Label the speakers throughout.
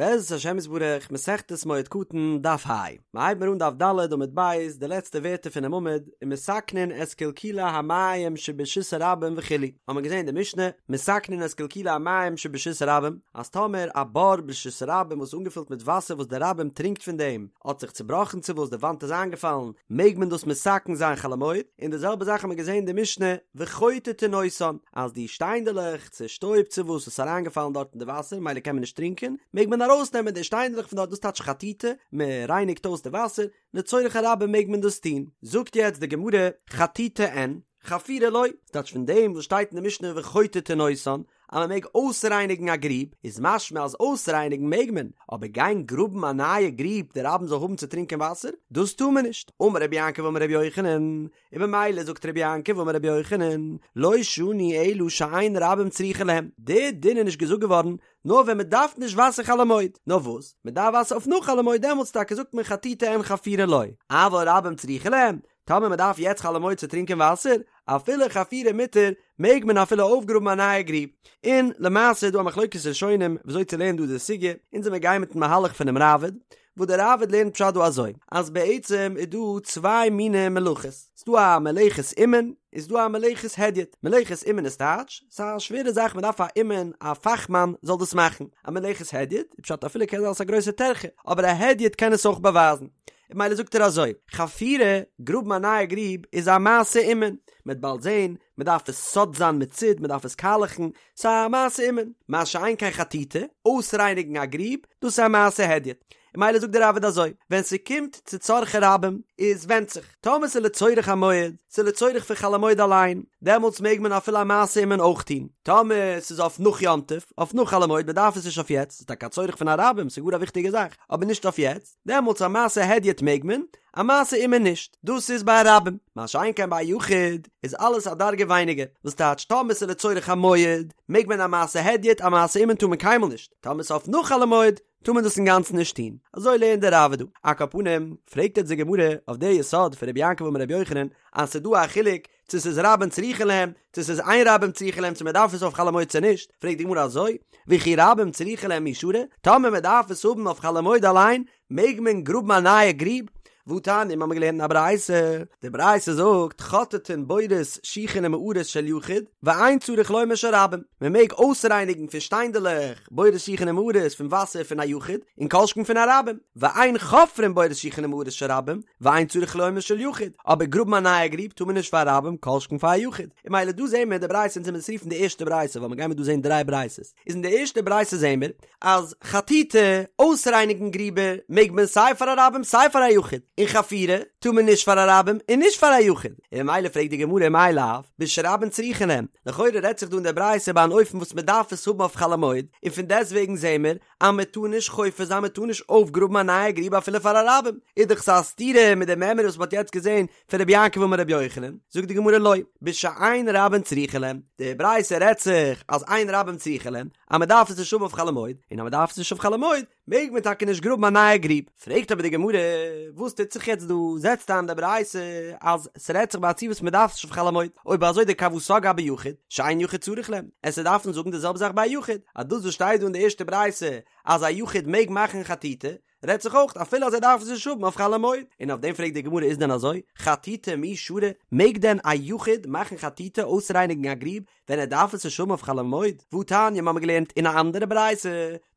Speaker 1: בעזרת השם יתברך, מסכת מועד קטן, דף ה. מ'הייבט מיר אן דף ד' עמוד ב', די לעצטע ווערטער פונעם עמוד, ומתקנין את קלקולי המים שברשות הרבים וכו', האט מען געזען אין די משנה, מתקנין את קלקולי המים שברשות הרבים, אז טאמער א בור ברשות הרבים וואס איז אנגעפילט מיט וואסער וואס די רבים טרינקט פון דעם, האט זיך צובראכן צו וואס די וואנט איז איינגעפאלן, מעג מען דאס מתקן זיין חול המועד, און די זעלבע זאך האט מען געזען אין די משנה, וחוטטין אותן, אז די שטיינדעלעך, צו שטויב צו וואס איז אריינגעפאלן דארט אין די וואסער מילא קען מען נישט טרינקען, מעג מען ארויסנעמען די שטיינדלעך פון דארט דאס טייטש חטיטה, מען רייניגט אויס די וואסער, לצורך הרבים מעג מען דאס טון. זאגט יעצט די גמרא, חטיטה אין, חפירה לא, ס'טייטש פון דעם וואס שטייט אין די משנה וחוטטין אותן, אז מען מעג אויסרייניגן א גריב, איז משמע אז אויסרייניגן מעג מען, אבער גיין גראבן א נייע גריב די רבים זאל האבן צו טרינקען וואסער, דאס טאר מען נישט. אמר רבי יעקב אמר רבי יוחנן, און במילא זאגט רבי יעקב אמר רבי יוחנן, לא שנו אלא שאין רבים צריכין להם, די דין איז נישט געזאגט געווארן נאר ווען מען דארף נישט וואסער חול המועד, נאר וואס, מען דארף וואסער אויף נאך חול המועד דעמאלטס טאקע זאגט מען חטיטה אין חפירה לא, אבל רבים צריכין להם, טאמער מען דארף יעצט חול המועד צו טרינקען וואסער, אפילו חפירה מותר, מעג מען אפילו אויפגראבן א נייע גריב. און למעשה איז דא א מחלוקת ראשונים וויאזוי צו לערנען דא די סוגיא, אונז וועמיר גיין מיטן מהלך פונעם ראבד, וואס דער ראבד לערנט פשט דא אזוי, אז בעצם איז דא צוויי מיני מלאכות, ס'איז דא א מלאכת אומן, און ס'איז דא א מלאכת הדיוט, מלאכת אומן איז טייטש, ס'איז א שווערע זאך מ'דארף א אומן, א פאכמאן זאל דאס מאכן, א מלאכת הדיוט, איז פשט אפילו קען זיין ס'איז א גרויסע טרחה, אבער א הדיוט קען עס אויך באווייזן, און מילא זאגט ער אזוי, חפירה, גראבן א נייע גריב, איז א מעשה אומן, מ'וועט באלד זען, מ'דארף עס סד זיין מיט סיד, מ'דארף עס קאלעכן, ס'איז א מעשה אומן, מה שאין כן חטיטה, אויסרייניגן א גריב, דאס איז א מעשה הדיוט. און מילא זאגט דער ראבד אזוי, ווען ס'קומט צו צרכי רבים, איז ווענדט זיך, טאמער ס'איז לצורך המועד, ס'איז לצורך פון חול המועד אליין, דעמאלטס מעג מען אפילו א מעשה אומן אויך טון. טאמער ס'איז אויף נאך יום טוב, אויף נאך חול המועד, מ'דארף עס נישט אויף יעצט, ס'איז טאקע א צורך פון א רבים, ס'איז גאר א וויכטיגע זאך, אבער נישט אויף יעצט, דעמאלטס א מעשה הדיוט מעג מען, א מעשה אומן נישט, דאס איז ביי א רבים, מה שאין כן ביי א יחיד איז אלעס א דרגה ווייניגער, וואס טייטש טאמער ס'איז לצורך המועד מעג מען א מעשה הדיוט, א מעשה אומן טאר מען קיינמאל נישט, טאמער ס'איז אויף נאך חול המועד טאר מען דאס אינגאנצן נישט טון, אזוי לערנט דער ראבד דא. על כל פנים, פרעגט יעצט די גמרא אויף די יסוד פון רבי יעקב אמר רבי יוחנן אז ס'איז דא א חילוק צו ס'איז רבים צריכין להם, צו ס'איז אין רבים צריכין להם, צו מ'דארף עס אויף חול המועד צו נישט, פרעגט די גמרא אזוי, וכי רבים צריכין להם מי שרי, טאמער מ'דארף עס האבן אויף חול המועד אליין, מעג מען גראבן א נייע גריב? והתניא, מ'האמיר געלערנט אין א ברייתא, די ברייתא זאגט, חוטטין בורות שיחין ומערות של יחיד, ואין צריך לומר של רבים, מ'מעג אויסרייניגן פון שטיינדעלעך בורות שיחין ומערות פון וואסער פון א יחיד, און כל שכן פון א רבים, ואין חופרין בורות שיחין ומערות של רבים, ואין צריך לומר של יחיד, אבער גראבן א נייע גריב טאר מען נישט פאר א רבים כל שכן פאר א יחיד, און מילא דא זעהן מיר די ברייתא אונז וועמיר עס רופן די ערשטע ברייתא ווייל מיר גיימיר דא זעהן דריי ברייתות, איז אין די ערשטע ברייתא זעהן מיר אז חטיטה, אויסרייניגן גריבער, מעג מען סיי פאר א רבים סיי פאר א יחיד, און חפירה טאר מען נישט פאר א רבים און נישט פאר א יחיד, און ממילא פרעגט די גמרא מאי לאו בשרבים צריכין להם, לכאורה רעדט זיך דא אין די ברייתא ביי אן אופן וואס מען דארף עס האבן אויף חול המועד, און פון דעסטוועגן זעהן מיר אז מען טאר נישט חופר זיין מען טאר נישט אויפגראבן א נייע גריב אפילו פאר א רבים, איז דאך ס'א סתירה מיט די מימרא וואס מען האט יעצט געזען פון רבי יעקב אמר רבי יוחנן, זאגט די גמרא לא, בשאין רבים צריכין להם, די ברייתא רעדט זיך אז אין רבים צריכין להם, אז מען דארף עס נישט האבן אויף חול המועד, און אז מען דארף עס נישט אויף חול המועד, מעג מען טאקע נישט גראבן א נייע גריב. פרעגט אבער די גמרא, וואס טוט זיך יעצט דא, זעצט איין די ברייתא אז ס'רעדט זיך ביי א ציור וואס מען דארף עס נישט אויף חול המועד, אויב אזוי דכוותיה גבי יחיד, שאין יחיד צריך להם, וועסטו דארפן זאגן די זעלבע זאך ביי א יחיד, אז דאס וואס שטייט דא אין די ערשטע ברייתא אז א יחיד מעג מאכן חטיטה, רעדט זיך אויך אפילו אז ער דארף עס נישט האבן אויף חול המועד, און אויף דעם פרעגט די גמרא איז דען אזוי, חטיטה מי שרי, מעג דען א יחיד מאכן חטיטה אויסרייניגן א גריב ווען ער דארף עס נישט האבן אויף חול המועד? והתניא מ'האמיר געלערנט אין א אנדערע ברייתא,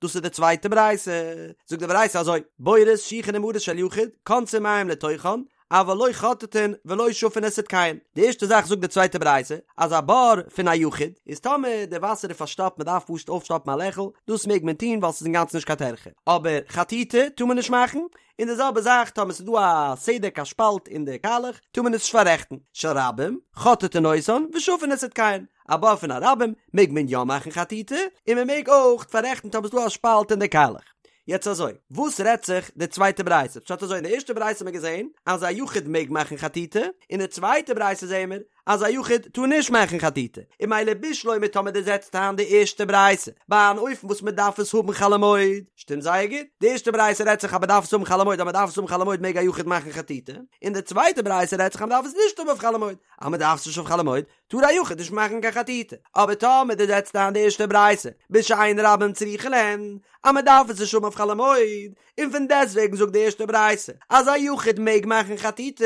Speaker 1: דאס איז די צווייטע ברייתא, זאגט די ברייתא אזוי, בורות שיחין ומערות של יחיד, כונסין מים לתוכן, אבל לא חוטטין ולא שפין את סדקיהן. די ערשטע זאך זאגט די צווייטע ברייתא, אז א בור פון א יחיד, איז טאמער די וואסער איז פארשטאפט מען דארף פשוט אויפשטאפן א לעכל, דאס מעג מען טון ווייל ס'איז אינגאנצן נישט קיין טרחה. אבער חטיטה טאר מען נישט מאכן, און די זעלבע זאך טאמער ס'איז דא א סדק א שפאלט אין די קאלעך, טאר מען עס נישט פאררעכטן. של רבים, חוטטין אותן ושפין את סדקיהן. א בור פון א רבים מעג מען יא מאכן חטיטה, און מען מעג אויך פאררעכטן טאמער ס'איז דא א שפאלט אין די קאלעך. יעצט אזוי, וואס רעדט זיך די צווייטע ברייתא? פשט אזוי, אין די ערשטע ברייתא האט מען געזען אז א יחיד מעג מאכן חטיטה, אין די צווייטע ברייתא זעען מיר. אז א יחיד טאר נישט מאכן חטיטה, און ממילא בשלמא טאמער דו זעצט איין די ערשטע ברייתא ביי אן אופן וואס מען דארף עס האבן חול המועד, שטימט זייער גוט, די ערשטע ברייתא רעדט זיך אז מען דארף עס האבן חול המועד אז מען דארף עס האבן חול המועד מעג א יחיד מאכן חטיטה, און די צווייטע ברייתא רעדט זיך אז מען דארף עס נישט האבן אויף חול המועד, אז מען דארף עס נישט אויף חול המועד טאר א יחיד נישט מאכן קיין חטיטה, אבער טאמער דו זעצט איין די ערשטע ברייתא בשאין רבים צריכין להן אז מען דארף עס נישט האבן אויף חול המועד, און פון דעסטוועגן זאגט די ערשטע ברייתא אז א יחיד מעג מאכן חטיטה,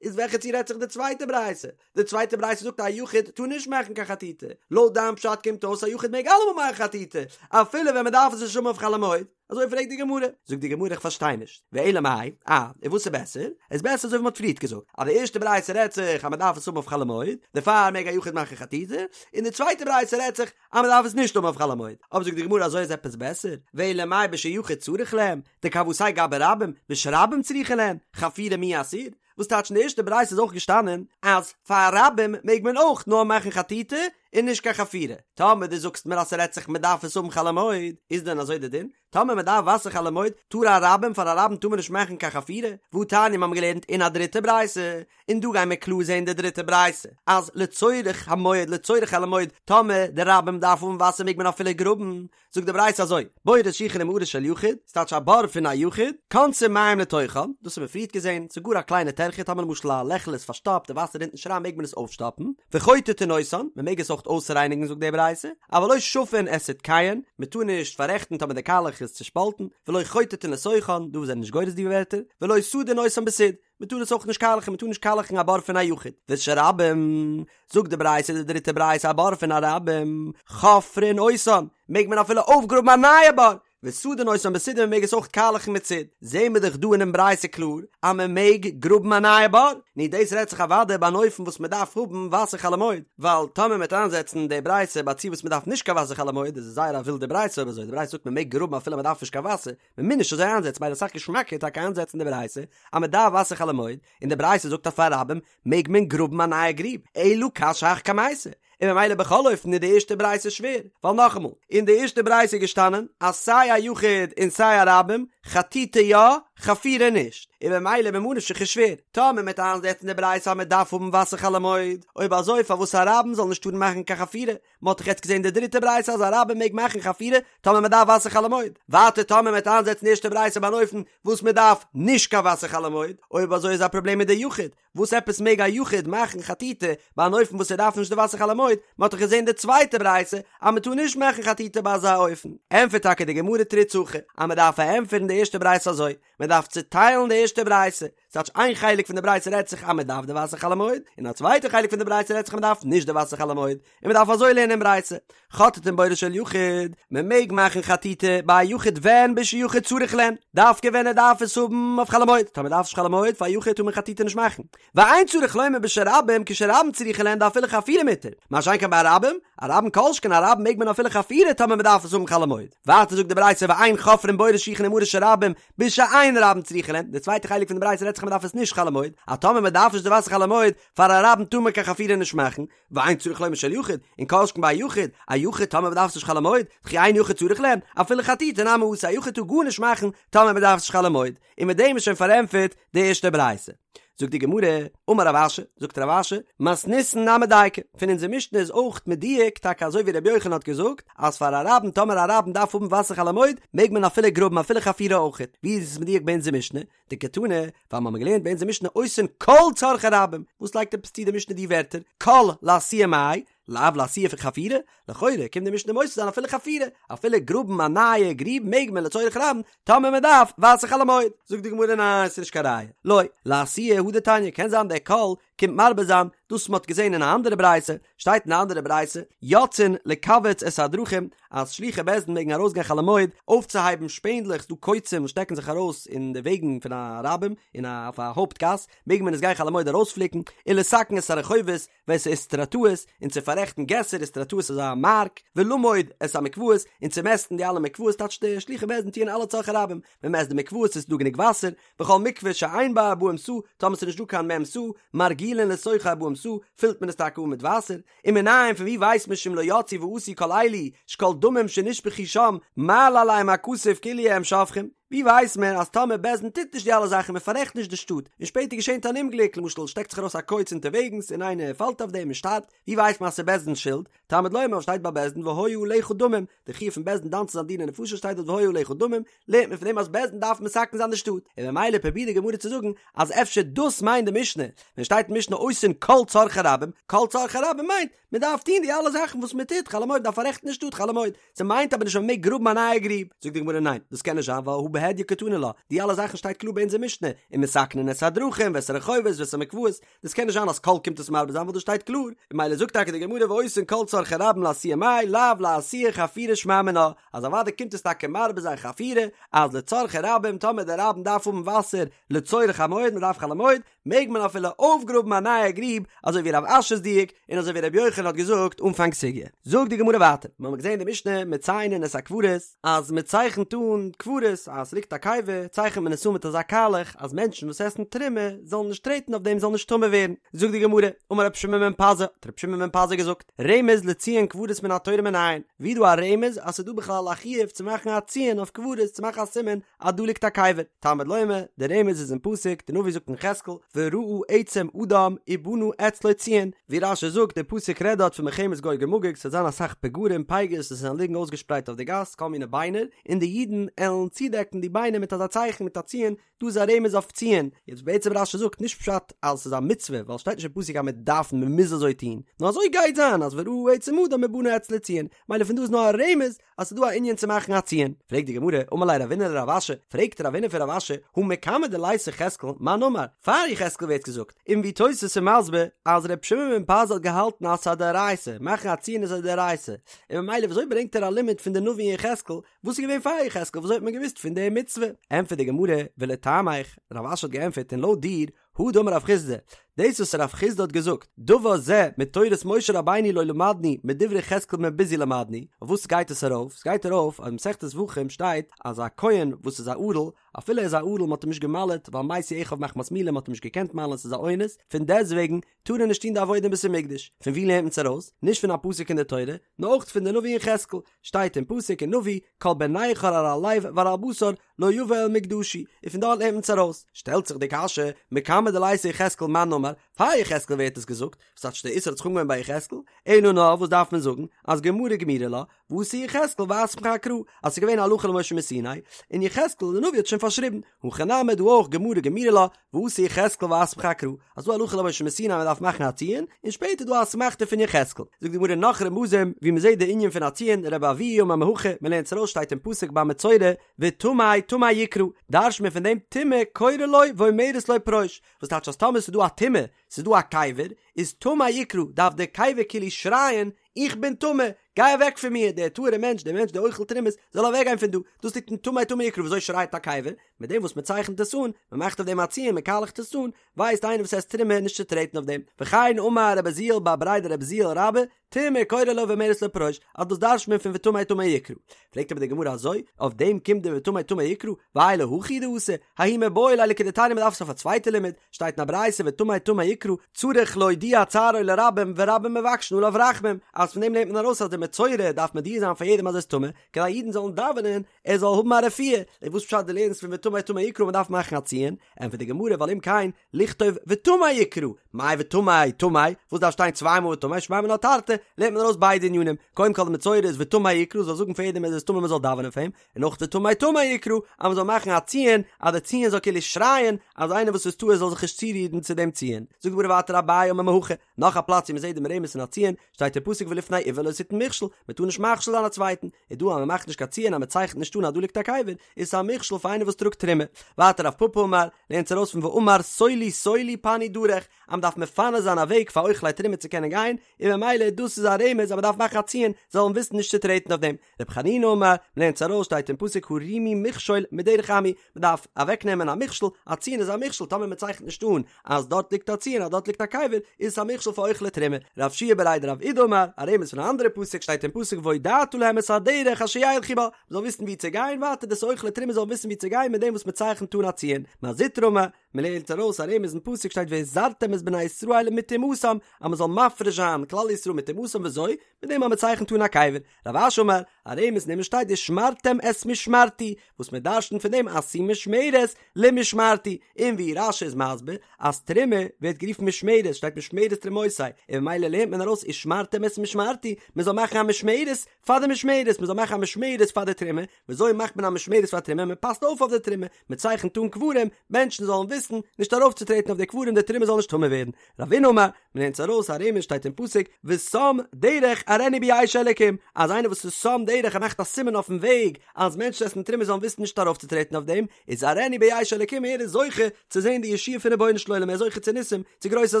Speaker 1: איז וועלכע ציור רעדט זיך די צווייטע ברייתא? די צווייטע ברייתא זאגט א יחיד טאר נישט מאכן קיין חטיטה, לויט דיין פשט קומט אויס א יחיד מעג אלעמאל מאכן חטיטה, אפילו ווען מען דארף עס נישט האבן אויף חול המועד, אזוי פרעגט די גמרא, זאגט די גמרא איך פארשטיי נישט, ואלא מאי, אה, און וואס איז בעסער? איז בעסער אזוי ווי מען האט פריערט געזאגט, אז די ערשטע ברייתא רעדט זיך אז מען דארף עס האבן אויף חול המועד, דערפאר מעג א יחיד מאכן חטיטה, און די צווייטע ברייתא רעדט זיך אז מען דארף עס נישט האבן אויף חול המועד, אבער זאגט די גמרא אזוי איז עפעס בעסער, ואלא מאי בשיחיד צריך להם, דכוותיה גבי רבים, בשרבים צריכין להם, חפירה מי אסיר? וואס טייטש אין די ערשטע ברייתא איז אויך געשטאנען אז פאר רבים מעג מען אויך נאר מאכן חטיטה און נישט קיין חפירה, טאמער דו זאגסט מיר אז ס'רעדט זיך מ'דארף עס האבן חול המועד, איז דען אזוי די דין? טאמער מ'דארף וואסער חול המועד טאר א רבים פאר א רבים טאר מען נישט מאכן קיין חפירה? והתניא מיר האבן געלערנט אין א דריטע ברייתא, און דא גייען מיר קלאר זעהן די דריטע ברייתא אז לצורך המועד לצורך חול המועד טאמער די רבים דארף האבן וואסער מעג מען אפילו גראבן, זאגט די ברייתא אזוי, בורות שיחין ומערות של יחיד, ס'טייטש א בור פון א יחיד, כונסין מים לתוכן, דאס האבן מיר פריערט געזען, ס'איז גאר א קליינע טרחה, טאמער למשל א לעכל איז פארשטאפט, די וואסער רינט נישט אריין מעג מען עס אויפשטאפן, וחוטטין אותן, מען מעג עס אויך אויסרייניגן זאגט די ברייתא, אבל לא שפין את סדקיהן, מען טאר נישט פאררעכטן טאמער די קאלעך איז צושפאלטן, ולא חוטטין לתוכן, דא זענען נישט גורס די ווערטער, ולא סדין אותן בסיד. מען טאר עס אויך נישט קאלעכן, מען טאר נישט קאלעכן א בור פון א יחיד, ושל רבים, זאגט די ברייתא די דריטע ברייתא א בור פון א רבים, חופרין אותן, מעג מען אפילו אויפגראבן א נייע בור, וסדין אותן בסיד און מען מעג עס אויך קאלעכן מיט סיד, זעהן מיר דאך דא אינעם ברייתא קלאר אז מען מעג גראבן א נייע בור, נו דאס רעדט זיך אוודאי ביי אן אופן וואס מען דארף האבן וואסער חול המועד, ווייל טאמער מען וועט איינזעצן די ברייתא ביי א ציור וואס מען דארף נישט קיין וואסער חול המועד איז עס זייער א ווילדע ברייתא אויב אזוי, די ברייתא זאגט מען מעג גראבן אפילו מען דארף נישט קיין וואסער, מען מוז נישט אזוי איינזעצן מילא אסאך געשמאקער טאקע איינזעצן די ברייתא אז מען דארף וואסער חול המועד, און די ברייתא זאגט אז פאר רבים מעג מען גראבן א נייע גריב, אלא קשיא הך קמייתא, און ממילא בכל אופן איז די ערשטע ברייתא שווער, ווייל נאכאמאל, אין די ערשטע ברייתא איז געשטאנען אז סיי א יחיד און סיי א רבים, חטיטה יא, חפירה נישט, און ממילא ממה נפשך איז שווער, טאמער מען וועט איינזעצן די ברייתא אז מען דארף האבן וואסער חול המועד, אויב אזוי פארוואס א רבים זאל נישט טארן מאכן קיין חפירה, מען האט דאך יעצט געזען די דריטע ברייתא אז א רבים מעג מאכן חפירה טאמער מען דארף וואסער חול המועד, ווייטער טאמער מען וועט איינזעצן די ערשטע ברייתא ביי אן אופן וואס מען דארף נישט קיין וואסער חול המועד, אויב אזוי איז א פראבלעם מיט די יחיד, וואס עפעס מעג א יחיד מאכן חטיטה ביי אן אופן וואס ער דארף נישט די וואסער חול המועד, מען האט דאך געזען די צווייטע ברייתא אז מען טאר נישט מאכן חטיטה ביי אזא אופן, ענטפערט טאקע די גמרא תריץ הכי אז מען דארף פארענטפערן די ערשטע ברייתא אזוי, מען דארף צוטיילן די ערשטע ברייתא, ס'טייטש איין חלק פון די ברייתא רעדט זיך אז מען דארף די וואסער חול המועד, און א צווייטע חלק פון די ברייתא רעדט זיך אז מען דארף נישט די וואסער חול המועד, און מען דארף אזוי לערנען אין ברייתא, חוטטין בורות של יחיד, מען מעג מאכן חטיטה ביי א יחיד ווען בשיחיד צריך להן, דווקא ווען ער דארף עס האבן אויף חול המועד, טאמער דארף נישט חול המועד פאר א יחיד טאר מען חטיטה נישט מאכן, ואין צריך לומר בשל רבים כשרבים צריכין להן דאפילו חפירה מותר, מה שאין כן ביי א רבים, א רבים כל שכן א רבים מעג מען אפילו חפירה טאמער מען דארף עס האבן חול המועד, ווייטער זאגט די ברייתא ואין חופרין בורות שיחין ומערות של רבים בשאין רבים צריכין להן, די צווייטע חלק פון די ברייתא רעדט זיך אז מען דארף עס נישט חול המועד, אז טאמער מען דארף נישט די וואסער חול המועד, פאר א רבים טאר מען קיין חפירה נישט מאכן, ואין צריך לומר של יחיד, און כל שכן ביי א יחיד, א יחיד טאמער מען דארף עס נישט חול המועד, דכי אין יחיד צריך להן, אפילו חטיטה נמי אסור, א יחיד טאר גארנישט מאכן טאמער מען דארף עס נישט חול המועד, און מיט דעם איז שוין פארענטפערט די ערשטע ברייתא. זאגט די גמרא, אמר רב אשי, זאגט רב אשי, מתניתין נמי דייקא, פון אונזער משנה איז אויך מדויק טאקע אזוי ווי רבי יוחנן האט געזאגט, אז פאר א רבים טאמער א רבים דארף האבן וואסער חול המועד מעג מען אפילו גראבן אפילו חפירה אויכעט, ווי איז עס מדויק ביי אונזער משנה? דקתני, ווייל מ'האמיר געלערנט ביי אונזער משנה עושין כל צרכי רבים, וואס לייגט עפעס צו די משנה די ווערטער כל לאתויי מאי, לאו לאתויי פון חפירה? לכאורה קומט די משנה מוסיף זיין אפילו חפירה, אפילו גראבן א נייע גריב מעג מען לצורך רבים, טאמער מען דארף וואסער חול המועד. זאגט די גמרא ניין ס'איז נישט קיין ראיה, לא, לאתויי הא דתניא, קען זיין דער כל קומט מרבה זיין דאס מ'האט געזען אין א אנדערע ברייתא, שטייט אין א אנדערע ברייתא, יוצאין לקווץ את הדרכים, אז שלוחי בית דין מעגן ארויסגיין חול המועד אויפצוהייבן שפענדלעך, ס'דא קוצים וואס שטעקן זיך ארויס אין די וועגן פון א רבים, אין א אויף א הויפט גאס, מעג מען עס גיין חול המועד ארויספליקן, ולתקן את הרחובות, ואת האיסטרטאות, און צו פאררעכטן געסער, איסטרטאות איז א מארק, ולמוד את המקוואות, און צו מעסטן די אלע מקוואות, טייטש די שלוחי בית דין טוען אלע צרכי רבים, מען מעסט די מקוואות עס איז דא גענוג וואסער, וכל מקווה שאין בה ארבעים סאה, טאמער ס'איז נישט דא קיין מ' סאה, מרגילין לתוכה ארבעים סאה, פילט מען עס טאקע אן מיט וואסער, ומנין פון ווי ווייסט מען שאם לא יצאו ועשו כל אלו, שכל דמים שנשפכו שם, מעלה עליהם הכתוב כאילו הם שופכים. ווי ווייסט מען אז טאמער בית דין טוט נישט די אלע זאכן מען פאררעכט נישט די שטאט, און שפעטער געשענט אן אומגליק, למשל שטעקט זיך ארויס א קוץ אונטערוועגנס און איינער פאלט אויף דעם און שטארבט, ווי ווייסט מען אז ס'איז בית דין'ס שולד? תלמוד לומר שטייט ביי בית דין והיה עליך דמים, די חיוב פון בית דין דן צו זיין דיני נפשות שטייט דארט והיה עליך דמים, לערנט מען פון דעם אז בית דין דארף מתקן זיין די שטאט, און ממילא פרובירט די גמרא צו זאגן אז אפשר דאס מיינט די משנה, ווען שטייט אין משנה עושין כל צרכי רבים, כל צרכי רבים מיינט, מען דארף טון די אלע זאכן וואס מען טוט חול המועד, דארף פאררעכטן די שטאט חול המועד, ס'מיינט אבער נישט אז מען מעג גראבן א נייע גריב, זאגט די גמרא ניין, דאס קען נישט זיין ווייל הא בהדיא קתני לה, די אלע זאכן שטייט קלאר ביי אונזער משנה, ומתקנין את הדרכים ואת הרחובות ואת המקוואות, דאס קען נישט זיין אז כל קומט עס מרבה זיין ווייל דאס שטייט קלאר, און ממילא זאגט טאקע די גמרא ועושין כל צרכי רבים לאתויי מאי לאו לאתויי חפירה שמע מינה, אז אוודאי קומט עס טאקע מרבה זיין חפירה, אז לצרכי רבים טאמער די רבים דארף האבן וואסער לצורך המועד מען דארף חול המועד, מעג מען אפילו אויפגראבן א נייע גריב, אזוי ווי רב אשי'ס דיוק, און אזוי ווי רבי יוחנן האט געזאגט אנפאנג סוגיא. זאגט די גמרא ווייטער, מיר האבן געזען אין די משנה מציינין את הקברות, אז מען צייכנט אן קברות, אז עס ליגט א קבר, צייכנט מען עס אן מיט אזא קאלעך, אז מענטשן וואס עסן תרומה זאלן נישט טרעטן אויף דעם זאלן נישט טמא ווערן. זאגט די גמרא, אמר רבי שמעון בן פזי, האט רבי שמעון בן פזי געזאגט, רמז לציון קברות מן התורה מנין, ווי איז דא א רמז אז ס'איז דא בכלל א חיוב צו מאכן א ציון אויף קברות, צו מאכן א סימן אז דא ליגט א קבר, תלמוד לומר, דער רמז איז אין פסוק, די נביא זאגט אין יחזקאל, וראה עצם אדם ובנה אצלו ציון, ווי רש"י זאגט, דער פסוק רעדט דארט פון מלחמת גוג ומגוג, ס'וועט זיין אסאך פגרים, פגר'ס, וואס וועלן ליגן אויסגעשפרייט אויף די גאס, כל מיני ביינער, און די אידן עלן צודעקן די ביינער מיט אזא צייכן, מיט א ציון, דא איז א רמז אויף ציון, יעצט בעצם רש"י זאגט נישט פשט אז ס'איז א מצוה, ווייל ס'שטייט נישט אין פסוק אז מען דארף, מען מוז אזוי טון, נאר אזוי גייט זיין אז וראה עצם אדם ובנה אצלו ציון, מילא פון דא איז נאר א רמז אז ס'איז דא א ענין צו מאכן א ציון. פרעגט די גמרא, אמר ליה רבינא לרב אשי, פרעגט רבינא פון רב אשי, הא מקמי דליתא יחזקאל, מאן אמר, פאר יחזקאל ווערט געזאגט, און ווי תוס' איז מסביר אז ר' שמעון בן פזי האט געהאלטן אז ס'איז א דאורייתא, מאכן א ציון איז א דאורייתא, און ממילא וויאזוי ברענגט ער א לימוד פון די נביא אין יחזקאל, וואס איז געווען פאר יחזקאל וויאזוי האט מען געוואוסט פון די מצוה? ענטפערט די גמרא, ולטעמיך, רב אשי האט געענטפערט און לויט דיר, הא דאמר רב חסדא, דאס וואס רב חסדא האט געזאגט, דבר זה מתורת משה רבינו לא למדנו מדברי יחזקאל בן בוזי למדנו, אויף וואס גייט עס ארויף? עס גייט ארויף אז אין מסכת זבחים שטייט אז א כהן וואס איז א ערל, אפילו ער איז א ערל מען האט אים נישט געמל'עט ווייל מתו אחיו מחמת מילה מען האט אים נישט געקענט מל'ען ס'איז א אונס, פון דעסטוועגן טאר ער נישט טון די עבודה אין בית המקדש, פון ווי לערנט מען עס ארויס? נישט פון א פסוק אין די תורה, נאר אויך פון די נביא יחזקאל, שטייט אין פסוק אין נביא, כל בן נכר ערל לב וערל בשר לא יבא אל מקדשי, און פון דארט לערנט מען עס ארויס. שטעלט זיך די קשיא, מקמי דליתא יחזקאל מאן אמר, פאר יחזקאל ווערט עס געזאגט, וואס טייטש די איסור האט זיך אנגעהויבן ביי יחזקאל, אלא נאר וואס דארף מען זאגן, אז גמרא גמירי לה, ואתא יחזקאל ואסמכה אקרא, אז ס'איז געווען הלכה למשה מסיני, און יחזקאל די נביא האט שוין פארשריבן, הכא נמי דא אויך גמרא גמירי לה, ואתא יחזקאל ואסמכה אקרא, אז דא הלכה למשה מסיני מען דארף מאכן א ציון, און שפעטער דא א אסמכתא פון יחזקאל. זאגט די גמרא נאך רמזים ווי מען זעט די ענין פון א ציון, רבי אבהו אמר מהכא, מען לערנט עס ארויס שטייט אין פסוק ביי מצורע, וטמא טמא יקרא, דרש'ט מען פון דעם טומאה קוראה לו ואומרת לו פרוש, וואס טייטש אז טאמער ס'איז דא א טומאה, ס'איז דא א קבר, איז טמא יקרא, דארף דער קבר כאילו שרייען, איך בין טמא, גיי אוועק פון מיר, דער טהור'ער מענטש, דער מענטש דער אוכל תרומות, זאל אוועק גיין פון דא, דאס ליגט אין טמא טמא יקרא, וויאזוי שרייט א קבר? מיט דעם וואס מען צייכנט עס אן, מען מאכט אויף דעם א ציון, מען קאלעכט עס אן, ווייסט איינער וואס עסט תרומה נישט צו טרעטן אויף דעם. וכן אמר רבי עוזיאל בר בריה דרבי עוזיאל רבה, טומאה קוראה לו ואומרת לו פרוש, אז דאס דרש'ט מען פון וטמא טמא יקרא. פרעגט אבער די גמרא אזוי, אויף דעם קומט די וטמא טמא יקרא, והאי להכי הוא דאתא, ההוא מיבעי ליה לכדתניא מען דארף עס אויף א צווייטע לימוד, שטייט אין א ברייתא וטמא טמא יקרא, צריך להודיע צערו לרבים ורבים מבקשין עליו רחמים, אז פון דעם לערנט מען ארויס אז די מצורע דארף מודיע זיין פאר יעדעם אז ער איז טמא, כדי אידן זאלן דאווענען ער זאל האבן א רפואה, און וואס פשט דו לערנסט פון וטמא טמא יקרא מען דארף מאכן א ציון, ענטפערט די גמרא ווייל אם כן לכתוב וטמא יקרא, מאי וטמא טמא, וואס דארף שטיין צוויי מאל וטמא, שמע מינה תרתי, לערנט מען ארויס ביידע ענינים, קודם כל די מצורע איז וטמא יקרא זאל זאגן פאר יעדעם אז ער איז טמא מען זאל דאווענען פאר אים, און אויך וטמא טמא יקרא, אז מען זאל מאכן א ציון, אז די ציון זאל כאילו שרייען, אז איינער וואס איז טהור זאל זיך נישט צורירן צו דעם ציון. זאגט די גמרא ווייטער אביי אמר מהכא, נאך א פלאץ ווי מען זעט דעם רמז פון א ציון, שטייט אין פסוק ולפני עור לא תתן מכשול, מען טאר נישט מכשיל זיין א צווייטן, איז דא אז מען מאכט נישט קיין ציון אז מען צייכנט נישט אן אז דא ליגט א קבר, איז עס א מכשול פאר איינער וואס טראגט תרומה. ווייטער רב פפא אמר, לערנט ארויס פון ואמר סולו סולו פנו דרך, אז מען דארף מפנה זיין א וועג פאר אוכלי תרומה צו קענען גיין, און ממילא דאס איז א רמז אז מען דארף מאכן א ציון, זאלן וויסן נישט צו טרעטן אויף דעם. רבי חנינא אמר, מ'לערנט עס ארויס שטייט אין פסוק הרימו מכשול מדרך עמי, מ'דארף אוועק נעמען א מכשול, א ציון איז א מכשול, טאמער מ'צייכנט נישט אן אז דארט ליגט א ציון אז דארט ליגט א קבר, איז עס א מכשול פאר אוכלי תרומה. רב שיע בריה דרב אידי אמר, א רמז פון א אנדערע פסוק שטייט אין פסוק והודעת להם את הדרך אשר ילכו בה, מ'זאל וויסן ווי צו גיין, ווייטער דאס אוכלי תרומה זאלן וויסן ווי צו גיין מיט דעם וואס מ'צייכנט אן א ציון. מר זוטרא אמר. מען לערנט ארויס א רמז אין פסוק שטייט והזרתם את בני ישראל מטומאתם אז מען זאל מפריש זיין כלל ישראל מטומאתם וויאזוי? מיט דעם אז מען צייכנט אן א קבר. רב אשי אמר, א רמז אין דעם שטייט ושמרתם את משמרתי, וואס מען דרש'נט פון דעם עשו משמרת למשמרתי, און ווי רש"י איז מסביר אז תרומה ווערט גערופן משמרת, שטייט משמרת תרומותי, און ממילא לערנט מען ארויס ושמרתם את משמרתי, מען זאל מאכן א משמרת פאר די משמרת, מען זאל מאכן א משמרת פאר די תרומה, וויאזוי מאכט מען א משמרת פאר תרומה, מען פאסט אויף אויף די תרומה, מען צייכנט אן קברים, מענטשן זאלן וויסן נישט ארויפצוטרעטן אויף די קברים די תרומה זאל נישט טמא ווערן, רבינא אמר, מען לערנט ארויס א רמז שטייט אין פסוק ושם דרך אראנו בישע אלקים, אז איינער וואס איז שם דרך ער מאכט א סימן אויפן וועג אז מענטשן עסן תרומה זאלן וויסן נישט ארויפצוטרעטן אויף דעם, איז אראנו בישע אלקים ער איז זוכה צו זען די ישועה פון רבונו של עולם ער איז זוכה צו ניסים צו גרויסע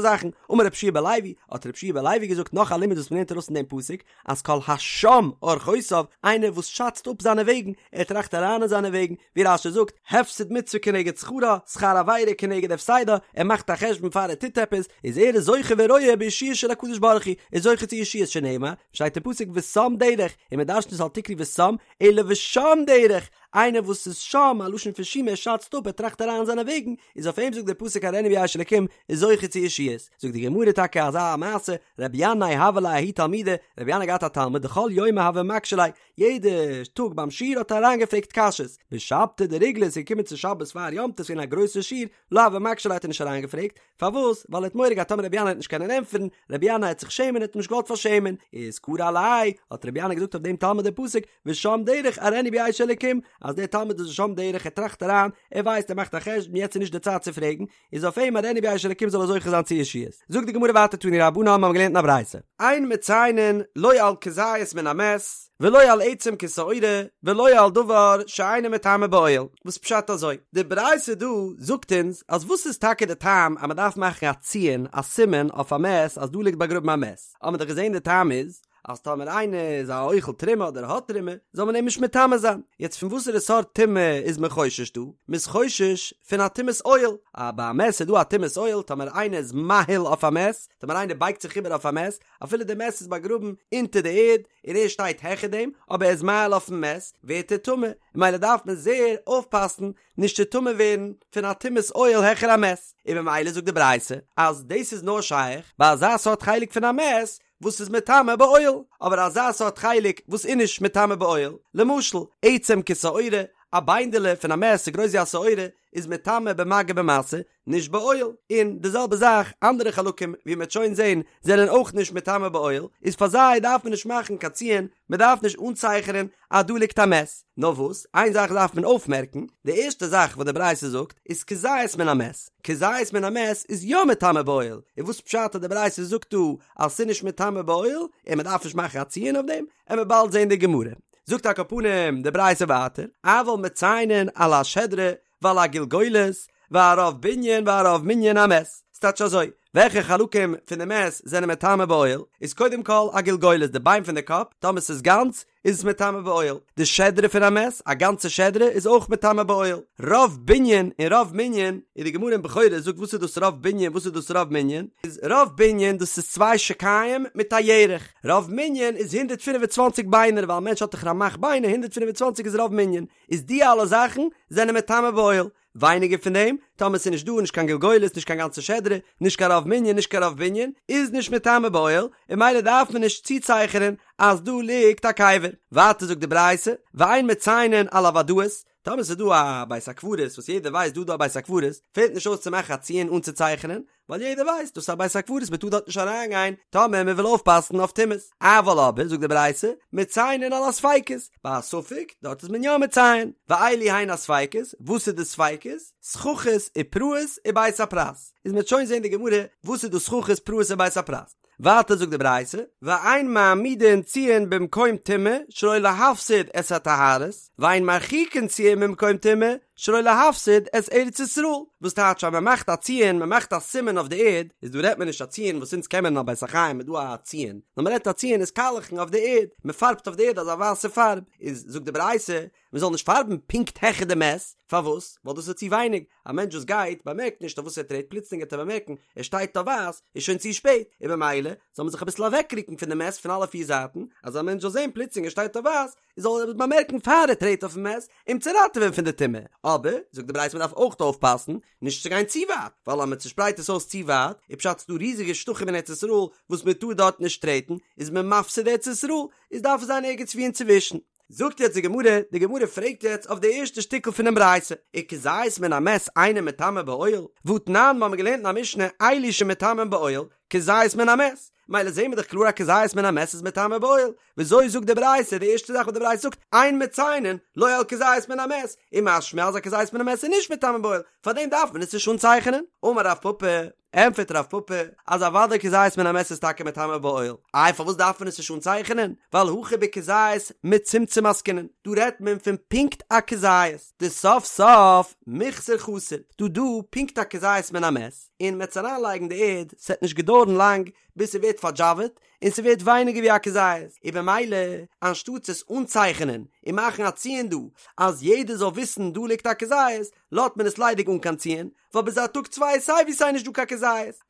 Speaker 1: זאכן, אמר רבי יהושע בן לוי, האט רבי יהושע בן לוי געזאגט נאך א לימוד וואס מען לערנט ארויס פון דעם פסוק, אז כל השם אורחותיו, איינער וואס שאצט אפ זיינע וועגן, ער טראכט אריין אין זיינע וועגן, ווי רש"י זאגט, הפסד מצוה כנגד שכרה, שכר עבירה כנגד הפסדה, ער מאכט א חשבון פאר ער טוט עפעס, איז ער איז זוכה ורואה בישועה של הקדוש ברוך הוא, איז זוכה צו ישועות שנאמר, שטייט אין פסוק ושם דרך, און מען דרש'נט עס אל תקרי ושם, אלא ושם דרך, איינער וואס איז שם, א לשון פון שומא, ער שאצט אפ, ער טראכט אריין אין זיינע וועגן, איז אויף אים זאגט דער פסוק אראנו בישע אלקים, איז זוכה צו ישועות. זאגט די גמרא טאקע אזא מעשה, רבי ינאי הוה ליה ההוא תלמידא, רבי ינאי האט געהאט א תלמיד דכל יומא הוה מקשי ליה, יעדע טאג ביים שיעור האט ער אריינגעפרעגט קשיות, בשבתא דריגלא איז געקומען צו שבת פאר יום טוב ס'איז געווען א גרויסע שיעור, לא הוה מקשי ליה האט ער נישט אריינגעפרעגט, פארוואס? ווייל ער האט מורא געהאט טאמער רבי ינאי וועט נישט קענען ענטפערן, רבי ינאי וועט זיך שעמען ער האט אים נישט געוואלט פארשעמען, איז קרי עליה, האט רבי ינאי געזאגט אויף דעם תלמיד די פסוק, ושם דרך אראנו בישע אלקים, אז דער תלמיד איז ושם דרך ער טראכט אריין, ער ווייסט ער מאכט א חשבון יעצט איז נישט די צייט צו פרעגן, איז אויף אים אראנו בישע אלקים זאל ער זוכה זיין צו ישועות. זאגט די גמרא ווייטער תנו רבנן מיר האבן געלערנט אין א ברייתא. אין מציינין לא על כזית מן המת ולא על עצם כשעורה ולא על דבר שאינו מטמא באוהל, וואס פשט אזוי? די ברייתא דא זאגט אונז אז וואס איז טאקע די טעם אז מען דארף מאכן א ציון א סימן אויף א מת אז דא ליגט באגראבן א מת, האבן מיר דאך געזען די טעם איז אז טאמער איינער איז א אוכל תרומה אדער האט תרומה, זאל מען אים נישט מטמא זיין. יעצט פון וואסערע סארט טומאה איז מען חושש דא? מען איז חושש פון א טומאת אוהל. א ביי א מת איז דא א טומאת אוהל, טאמער איינער איז מאהיל אויף א מת, טאמער איינער בייגט זיך איבער אויף א מת, אפילו די מת איז באגראבן אונטער די ערד און ער שטייט העכער דעם, אבער ער איז מאהיל אויפן מת, ווערט ער טמא. ממילא דארף מען זייער אויפפאסן נישט צו טמא ווערן פון א טומאת אוהל העכער א מת. און ממילא זאגט די ברייתא אז דאס איז נאר שייך ביי אזא סארט חלק פון א מת וואס איז מטמא באוהל, אבער אזא סארט חלק וואס איז נישט מטמא באוהל, למשל, עצם כשעורה, א ביינדעלע פון א מת ס'איז גרויס ווי א שעורה, איז מטמא במגע במשא, נישט באוהל, און די זעלבע זאך אנדערע חלקים ווי מ'וועט שוין זען זענען אויך נישט מטמא באוהל, איז פאר זיי דארף מען נישט מאכן קיין ציון, מ'דארף נישט אנצייכענען אז דא ליגט א מת. נאר וואס, איין זאך דארף מען אויפמערקן, די ערשטע זאך וואס די ברייתא זאגט איז כזית מן המת, כזית מן המת איז יא מטמא באוהל, און וואס פשט אז די ברייתא זאגט דא אז ס'איז נישט מטמא באוהל און מ'דארף נישט מאכן א ציון אויף דעם, עמיר באלד זען די גמרא. זאגט על כל פנים די ברייתא ווייטער, אבל מציינין על השדרה ועל הגלגולת ועל רוב בנין ועל רוב מנין המת, ס'טייטש אזוי, וועלכע חלקים פון די מת זענען מטמא באוהל, איז קודם כל א גלגולת די ביין פון די קאפ, טאמער ס'איז גאנץ איז עס מטמא באוהל, די שדרה פון א מת, א גאנצע שדרה איז אויך מטמא באוהל, רוב בנין און רוב מנין, און די גמרא אין בכורות זאגט וואס איז דאס רוב בנין וואס איז דאס רוב מנין, איז רוב בנין דאס איז צוויי שוקיים מיט א ירך, רוב מנין איז 125 ביינער ווייל א מענטש האט דאך רמ"ח ביינער 125 איז רוב מנין, איז די אלע זאכן זענען מטמא באוהל, ווייניגער פון דעם, טאמער ס'איז נישט דא נישט קיין גלגולת נישט קיין גאנצע שדרה, נישט קיין רוב מנין נישט קיין רוב בנין, איז נישט מטמא באוהל, און ממילא דארף מען נישט צוצייכענען אז דא ליגט א קבר. ווייטער זאגט די ברייתא, ואין מציינין על הוודאות, טאמער ס'איז דא א בית הקברות וואס יעדער ווייסט דא דא א בית הקברות, פעלט נישט אויס צו מאכן א ציון אנצוצייכענען, ווייל יעדער ווייסט דאס איז א בית הקברות מען טאר דארט נישט אריין גיין טאמער מען וויל אויפפאסן אויף טומאות, אבל אבער זאגט די ברייתא מציינין על הספיקות, ביי א ספק דארט איז מען יא מציין, ואלו הן הספיקות, וואס איז די ספיקות? סככות ופרעות ובית הפרס, איז מען וועט שוין זען די גמרא וואס איז דאס סככות פרעות און בית הפרס. ווייטער זאגט די ברייתא, ואין מעמידין ציון במקום טומאה שלא להפסיד את הטהרות, ואין מרחיקין ציון ממקום טומאה שלא להפסיד את ארץ ישראל, וואס טייטש אז מען מאכט א ציון, מען מאכט א סימן אויף די ערד, איז דא רעדט מען נישט א ציון וואס אונז קען מען אין א בית החיים איז דא א ציון, נאר מען רעדט א ציון איז קאלעכן אויף די ערד, מען פארבט אויף די ערד אזא ווייסע פארב, איז זאגט די ברייתא, מען זאל נישט פארבן פונקט העכער די מת, פארוואס? ווייל דאס איז צו ווייניג, א מענטש וואס גייט באמערקט נישט אויף וואס ער טרעט, פלוצלינג וועט ער באמערקן ער שטייט אויף ווייס, איז שוין צו שפעט, און במילא זאל מען זיך אביסל אוועקרוקן פון די מת פון אלע פיר זייטן, אז א מענטש זאל זען פלוצלינג ער שטייט אויף ווייס, זאל ער עס באמערקן פאר ער טרעט אויפן מת, אים צו ראטעווען פון די טומאה, אבער, זאגט די ברייתא מען דארף אויך אויפפאסן נישט צו גיין צו ווייט, ווייל אז מען צושפרייט עס אויס צו ווייט, איז פשט ס'דא ריזיגע שטחים אין ארץ ישראל וואס מען טאר דארט נישט טרעטן, איז מען מפסיד ארץ ישראל, איז דארף עס זיין ערגעץ ווי אינצווישן. זאגט יעצט די גמרא, די גמרא פרעגט יעצט אויף די ערשטע שטיקל פונעם ברייתא, וכזית מן המת אינו מטמא באוהל, והתנן, מ'האמיר געלערנט אין א משנה, אלו שמטמאין באוהל, כזית מן המת, מילא זעהן מיר דאך קלאר אז כזית מן המת איז מטמא באוהל, וויאזוי זאגט די ברייתא די ערשטע זאך וואס די ברייתא זאגט אין מציינין לא על כזית מן המת, און משמע אז א כזית מן המת איז נישט מטמא באוהל, פארדעם דארף מען עס נישט אנצייכענען. אמר רב פפא, ענטפערט רב פפא, אז אוודאי כזית מן המת איז טאקע מטמא באוהל, איי פארוואס דארף מען עס נישט אנצייכענען, ווייל הכא בכזית מצומצם עסקינן, דא רעדט מען פון פונקט א כזית, דסוף סוף מיחסר חסר, דא דא פונקט א כזית מן המת, און מ'עט עס אריינלייגן די ערד, ס'עט נישט געדויערן לאנג ביז ס'ווערט פארדזשאוועט, און ס'ווערט ווייניגער ווי א כזית, און במילא אנשטאטס עס אנצייכענען און מאכן א ציון דא אז יעדער זאל וויסן דא ליגט א כזית, לאזט מען עס ליידיג אן קיין ציון, ווייל ביז א טאג צוויי איז סיי ווי סיי נישט דא קיין כזית.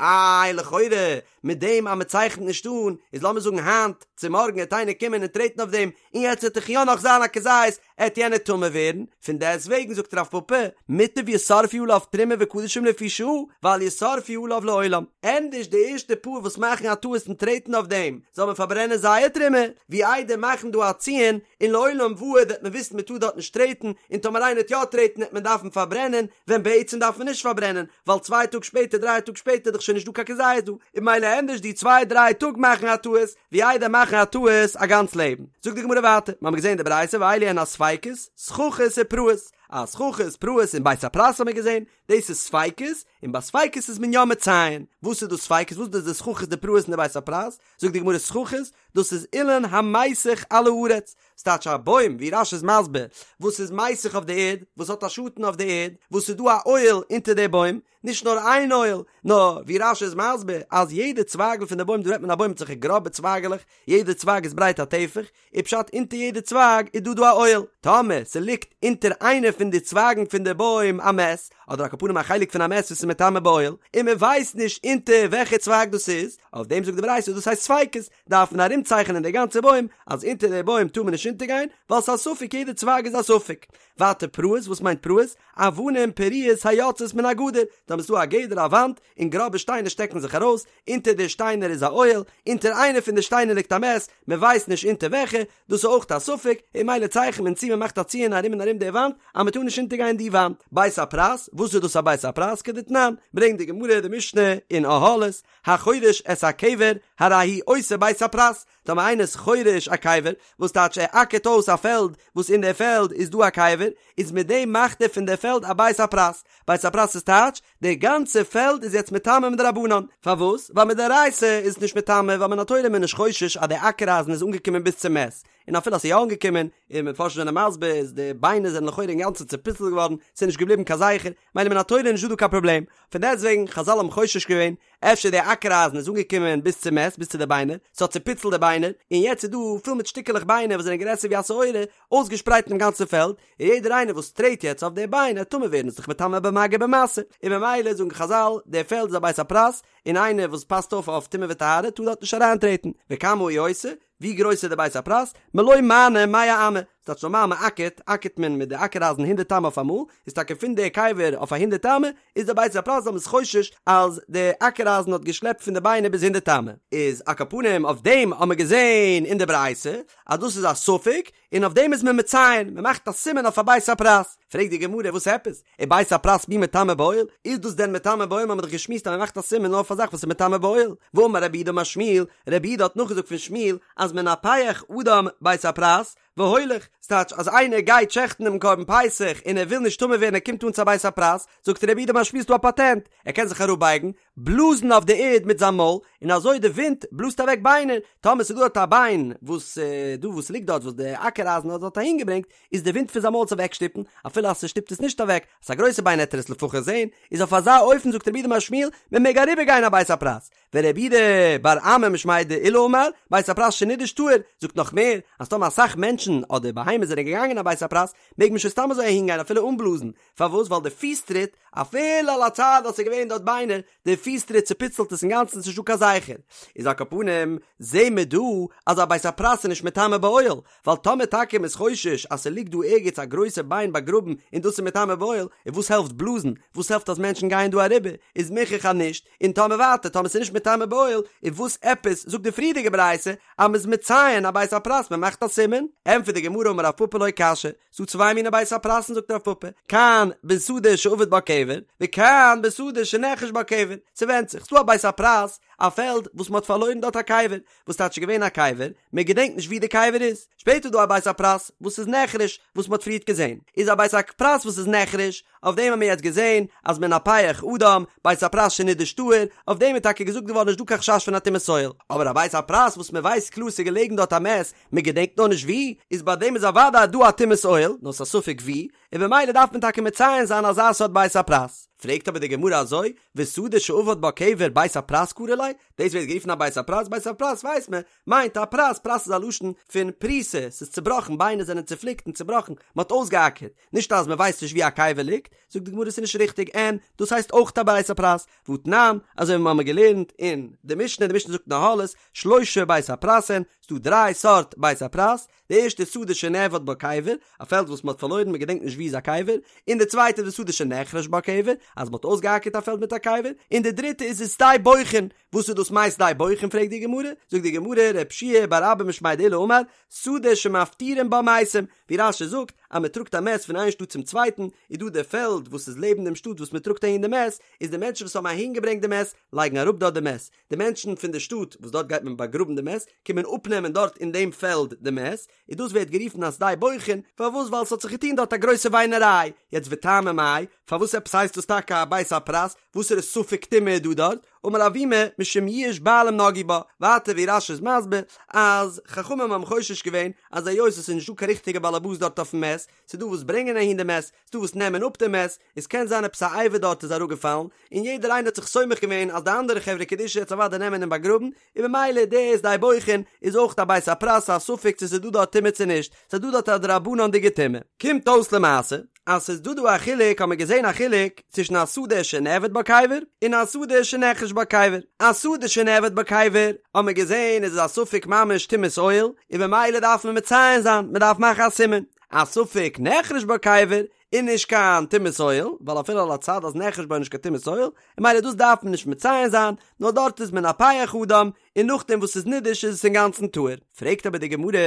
Speaker 1: איי לכאורה מיט דעם אז מ'צייכנט נישט אן, איז לאמיר זאגן היינט צו מארגן העט איינער קומען און טרעטן אויף דעם, און יעצט וועט דאך יא נאך זיין א כזית, עט יענער טמא ווערן, פון דעסט וועגן זאגט רב פפא, מוטב ישרפו עליו תרומה וקדשים לפי שעה, ואל ישרפו עליו לעולם, ענדערש די ערשטע פאר וואס מאכן א טעות און טרעטן אויף דעם, זאל מען פארברענען זייער תרומה, ווי איידער מאכן דא א ציון, און לעולם ועד וועט מען וויסן מען טאר דארט נישט טרעטן, און טאמער איינער וועט יא טרעטן וועט מען דארפן פארברענען, ווען בעצם דארף מען נישט פארברענען, ווייל צוויי טאג שפעטער דריי טאג שפעטער איז דאך שוין נישט דא קיין כזית דא, און ממילא ענדערש די צוויי דריי טאג מאכן א טעות, ווי איידער מאכן א טעות א גאנץ לעבן. זאגט די גמרא ווייטער, מ'האמיר געזען די ברייתא ואלו הן הספיקות, סככות ופרעות, אז סככות, פרעות און בית הפרס האמיר געזען, דאס איז ספיקות, און ביי ספיקות איז מען יא מציין. וואס איז דאס ספיקות? וואס איז דאס די סככות די פרעות און די בית הפרס? זאגט די גמרא סככות, דאס איז אילן המיסך על הארץ, ס'טייטש א בוים, ווי רש"י איז מסביר, וואס איז מיסך אויף די ערד, וואס האט א שאטן אויף די ערד, וואס איז דא א אוהל אונטער די בוים, נישט נאר איין אוהל, נאר ווי רש"י איז מסביר אז יעדע צווייגל פון די בוים, דא רעדט מען א בוים מיט אזעלכע גראבע צווייגעלעך, יעדע צווייג איז ברייט א טפח, איז פשט אונטער יעדע צווייג איז דא דא א אוהל, טאמער ס'ליגט אונטער איינע פון די צווייגן פון די בוים א מת, אדער על כל פנים א חלק פון א מת וואס איז מטמא באוהל, און מען ווייסט נישט אונטער וועלכע צווייג דאס איז, אויף דעם זאגט די ברייתא דאס הייסט ספיקות, דארף מען ארומצייכענען די גאנצע בוים אז אונטער די בוים טאר מען נישט אונטערגיין, ווייל ס'איז א ספק יעדע צווייג איז א ספק. ווייטער פרעות, וואס מיינט פרעות? אבנים פרועות היוצאות מן הגדר, טאמער ס'איז דא א גדר א וואנט, און גראבע שטיינער שטעקן זיך ארויס, אונטער די שטיינער איז א אוהל, אונטער איינע פון די שטיינער ליגט א מת, מען ווייסט נישט אונטער וועלכע, דאס איז אויך א ספק, און ממילא צייכנט מען צו מען מאכט א ציון ארום און ארום די וואנט, אז מען טאר נישט אונטערגיין די וואנט. בית הפרס, וואס איז דאס א בית הפרס? כדתנן, ברענגט די גמרא די משנה אין אהלות, החורש את הקבר, הרי הוא עושה בית הפרס, טאמער איינער איז חורש א קבר, וואס טייטש ער אקערט אויס א פעלד וואס אין די פעלד איז דא א קבר, איז מיט דעם מאכט ער פון די פעלד א בית הפרס, בית הפרס איז טייטש, די גאנצע פעלד איז יעצט מטמא מדרבנן, פארוואס? ווייל מדאורייתא איז עס נישט מטמא, ווייל מן התורה איז מען נישט חושש אז די אקער אייזן איז אנגעקומען ביז צום מת, און אפילו אז ס'איז יא אנגעקומען, און מפרשים זענען מסביר איז די ביינער זענען לכאורה אינגאנצן צופיצלט געווארן, ס'איז נישט געבליבן קיין זכר, מילא מן התורה איז נישטא דא קיין פראבלעם, פון דעסטוועגן חזל האבן חושש געווען, אפשר די אקער אייזן איז אנגעקומען ביז צום מת, ביז צו די ביינער, ס'האט צופיצלט די ביינער, און יעצט איז דא פול מיט שטיקעלעך ביינער וואס זענען גרעסער ווי א שעורה, אויסגעשפרייט אינעם גאנצן פעלד, און יעדער איינער וואס טרעט יעצט אויף די ביין עט טמא ווערן איז דאך מטמא במגע במשא, און ממילא זאגן חזל, די פעלד איז א בית הפרס, און איינער וואס פאסט אויף אויף טומאה וטהרה טאר דארט נישט אריינטרעטן, וכמה הוא עושה, ווי גרויס איז די בית הפרס? מלא מענה מאה אמה, ס'טייטש נארמאל מען אקערט, אקערט מען מיט די אקער אייזן הונדערט אמה אויף אמאל, איז טאקע פון די קבר אויף א הונדערט אמה, איז די בית הפרס ווייל מ'איז חושש אז די אקער אייזן האט געשלעפט פון די ביינער ביז הונדערט אמה. איז על כל פנים אויף דעם האט מען געזען אין די ברייתא אז דאס איז א ספק, און אויף דעם איז מען מציין, מען מאכט א סימן אויף א בית הפרס. פרעגט די גמרא וואס עפעס? ובית הפרס מי מטמא באוהל? איז דאס דען מטמא באוהל? מ'האט דאך געשמועסט אז מען מאכט א סימן נאר אויף א זאך וואס איז מטמא באוהל. והאמר רב יהודה אמר שמואל, רב יהודה האט נאכגעזאגט פון שמואל אז מנפח אדם בית הפרס והולך, ס'טייטש אז איינער גייט שעכטן דעם קרבן פסח און ער וויל נישט טמא ווערן ער קומט אן צו א בית הפרס, זאגט רב יהודה אמר שמואל ס'דא א פאטענט, ער קען זיך אראפבייגן, בלאזן אויף די ערד מיט זיין מויל, און אזוי די ווינט בלאזט אוועק ביינער, טאמער ס'איז דא דארט א ביין וואס דא וואס ליגט דארט וואס די אקער אייזן האט דארט אהין געברענגט, איז די ווינט פון זיין מויל עס אוועקשטופן, אפילו אז ס'שטופט עס נישט אוועק, אז ס'איז א גרויסע ביין עט ער עס לפחות זען, איז אויף אזא אופן זאגט רב יהודה אמר שמואל, מען מעג אריבער גיין א בית הפרס, ורב יהודה בר אמי משמיה דעולא אמר, בית הפרס שנידש טהור, זאגט נאך מער, אז טאמער אסאך מענטשן אדער בהמות זענען געגאנגען א בית הפרס, מעג מען שוין סתם אזוי אהין גיין אפילו אן בלאזן, פארוואס? ווייל די פיס טריט, אפילו על הצד אז ס'איז געווען דארט ביינער, די פיס. פיס טריט צופיצלט עס אינגאנצן ס'נישט דא קיין זכר. איז על כל פנים זעהן מיר דא אז א בית הפרס איז נישט מטמא באוהל, ווייל טאמער טאקע מ'איז חושש אז ס'ליגט דא ערגעץ א גרויסע ביין באגראבן און דאס איז מטמא באוהל, און וואס העלפט בלאזן? וואס העלפט אז מענטשן גייען דא אריבער? איז מוכח אז נישט, און טאמער ווייטער טאמער ס'איז נישט מטמא באוהל, איז וואס עפעס זאגט די פריערדיגע ברייתא אז מ'איז מציין א בית הפרס מ'מאכט א סימן? ענטפערט די גמרא אמר רב פפא לא קשיא, ס'דא צוויי מיני בית הפרסן זאגט רב פפא, כאן בשדה שאבד בה קבר, וכאן בשדה שנחרש בה קבר, ס'ווענדט זיך, ס'דא א בית הפרס, א פעלד וואס מ'האט פארלוירן דארט א קבר, וואס טייטש ס'איז געווען א קבר, מען געדענקט נישט ווי די קבר איז, שפעטער איז דא א בית הפרס וואס איז נחרש וואס מען האט פריערט געזען, איז א בית הפרס וואס איז נחרש, אויף דעם האבן מיר יעצט געזען אז מנפח אדם, בית הפרס שנידש טהור, אויף דעם איז טאקע געזאגט געווארן נישט דא קיין חשש פון א טומאת אוהל, אבער א בית הפרס וואס מען ווייסט קלאר ס'איז געלעגן דארט א מת, מען געדענקט נאר נישט ווי, איז ביי דעם איז אוודאי דא א טומאת אוהל, נאר ס'איז א ספק ווי, און במילא דארף מען טאקע מציין זיין אזא סארט בית הפרס. פרעגט אבער די גמרא אזוי, ושדה שאבד בה קבר בית הפרס קרי ליה, דאס ווערט גערופן א בית הפרס, בית הפרס ווייסט מען מיינט א פרס, פרס איז א לשון פון פריסה, ס'איז צובראכן, ביינער זענען צופליקט און צובראכן, מען האט אויסגעאקערט, נישט אז מען ווייסט נישט ווי א קבר ליגט, זאגט די גמרא ס'איז נישט ריכטיג, אין, דאס הייסט אויך א בית הפרס, והתנן, אזוי ווי מיר האבן געלערנט אין די משנה, די משנה זאגט אין אהלות, שלשה בית הפרס הן, ס'דא דריי סארט בית הפרס, די ערשטע איז שדה שנאבד בה קבר, א פעלד וואס מען האט פארלוירן מען געדענקט נישט ווי איז א קבר, און די צווייטע איז ושדה שנחרש בה קבר, אז מען האט אויסגעאקערט א פעלד מיט א קבר, און די דריטע איז ושדה בוכין, וואס איז דאס מאי שדה בוכין פרעגט די גמרא, זאגט די גמרא רב שיע בר אבא משמיה דעולא אמר, שדה שמפטירין בה מתים, ווי רש"י זאגט אז מען טראגט א מת פון איין שטאט צום צווייטן, איז דא די פעלד וואס איז לעבן דעם שטאט וואס מען טראגט אהין די מת, איז די מענטשן וואס האבן אהין געברענגט די מת לייגן אראפ דארט די מת, די מענטשן פון די שטאט וואס דארט גייט מען באגראבן די מת, קומען אפנעמען דארט אין דעם פעלד די מת, און דאס ווערט גערופן א שדה בוכין, פארוואס ווייל ס'האט זיך געטון דארט א גרויסע וויינעריי, יעצט וטעמא מאי, פארוואס עפעס הייסט דאס טאקע א בית הפרס, וואסערע ספק טומאה איז דא דארט, אמר אבימי, משום יאוש בעלים נגעו בה, ווייטער ווי רש"י איז מסביר, אז חכמים האבן חושש געווען אז היות עס איז נישטא קיין ריכטיגע באלעבאס דארט אויפן מת, ס'איז דא וואס ברענגען אהין די מת, ס'איז דא וואס נעמען אפ די מת, עס קען זיין עפעס א אבר דארט איז אראפגעפאלן, און יעדער איינער האט זיך סומך געווען אז די אנדערע חברה קדישא וועט עס אוודאי נעמען און באגראבן, און במילא די שדה בוכין איז אויך א בית הפרס א ספק צו ס'איז דא דארט טומאה צו נישט, ס'איז דא דארט א דרבנן'דיגע טומאה. קומט אויס למעשה אז ס'איז דא דא א חילוק האט מען געזען א חילוק צווישן א שדה שנאבד בה קבר און א שדה שנחרש בה קבר, א שדה שנאבד בה קבר האט מען געזען איז עס א ספק ממש טומאת אוהל און במילא דארף מען מציין זיין מען דארף מאכן א סימן, א ספק נחרש בה קבר איז נישט קיין טומאת אוהל, ווייל אפילו על הצד אז נחרש בה איז נישט קיין טומאת אוהל, און ממילא דאס דארף מען נישט מציין זיין, נאר דארט איז מנפח אדם, און נאכדעם וואס ס'איז נידש איז עס אינגאנצן טהור. פרעגט אבער די גמרא,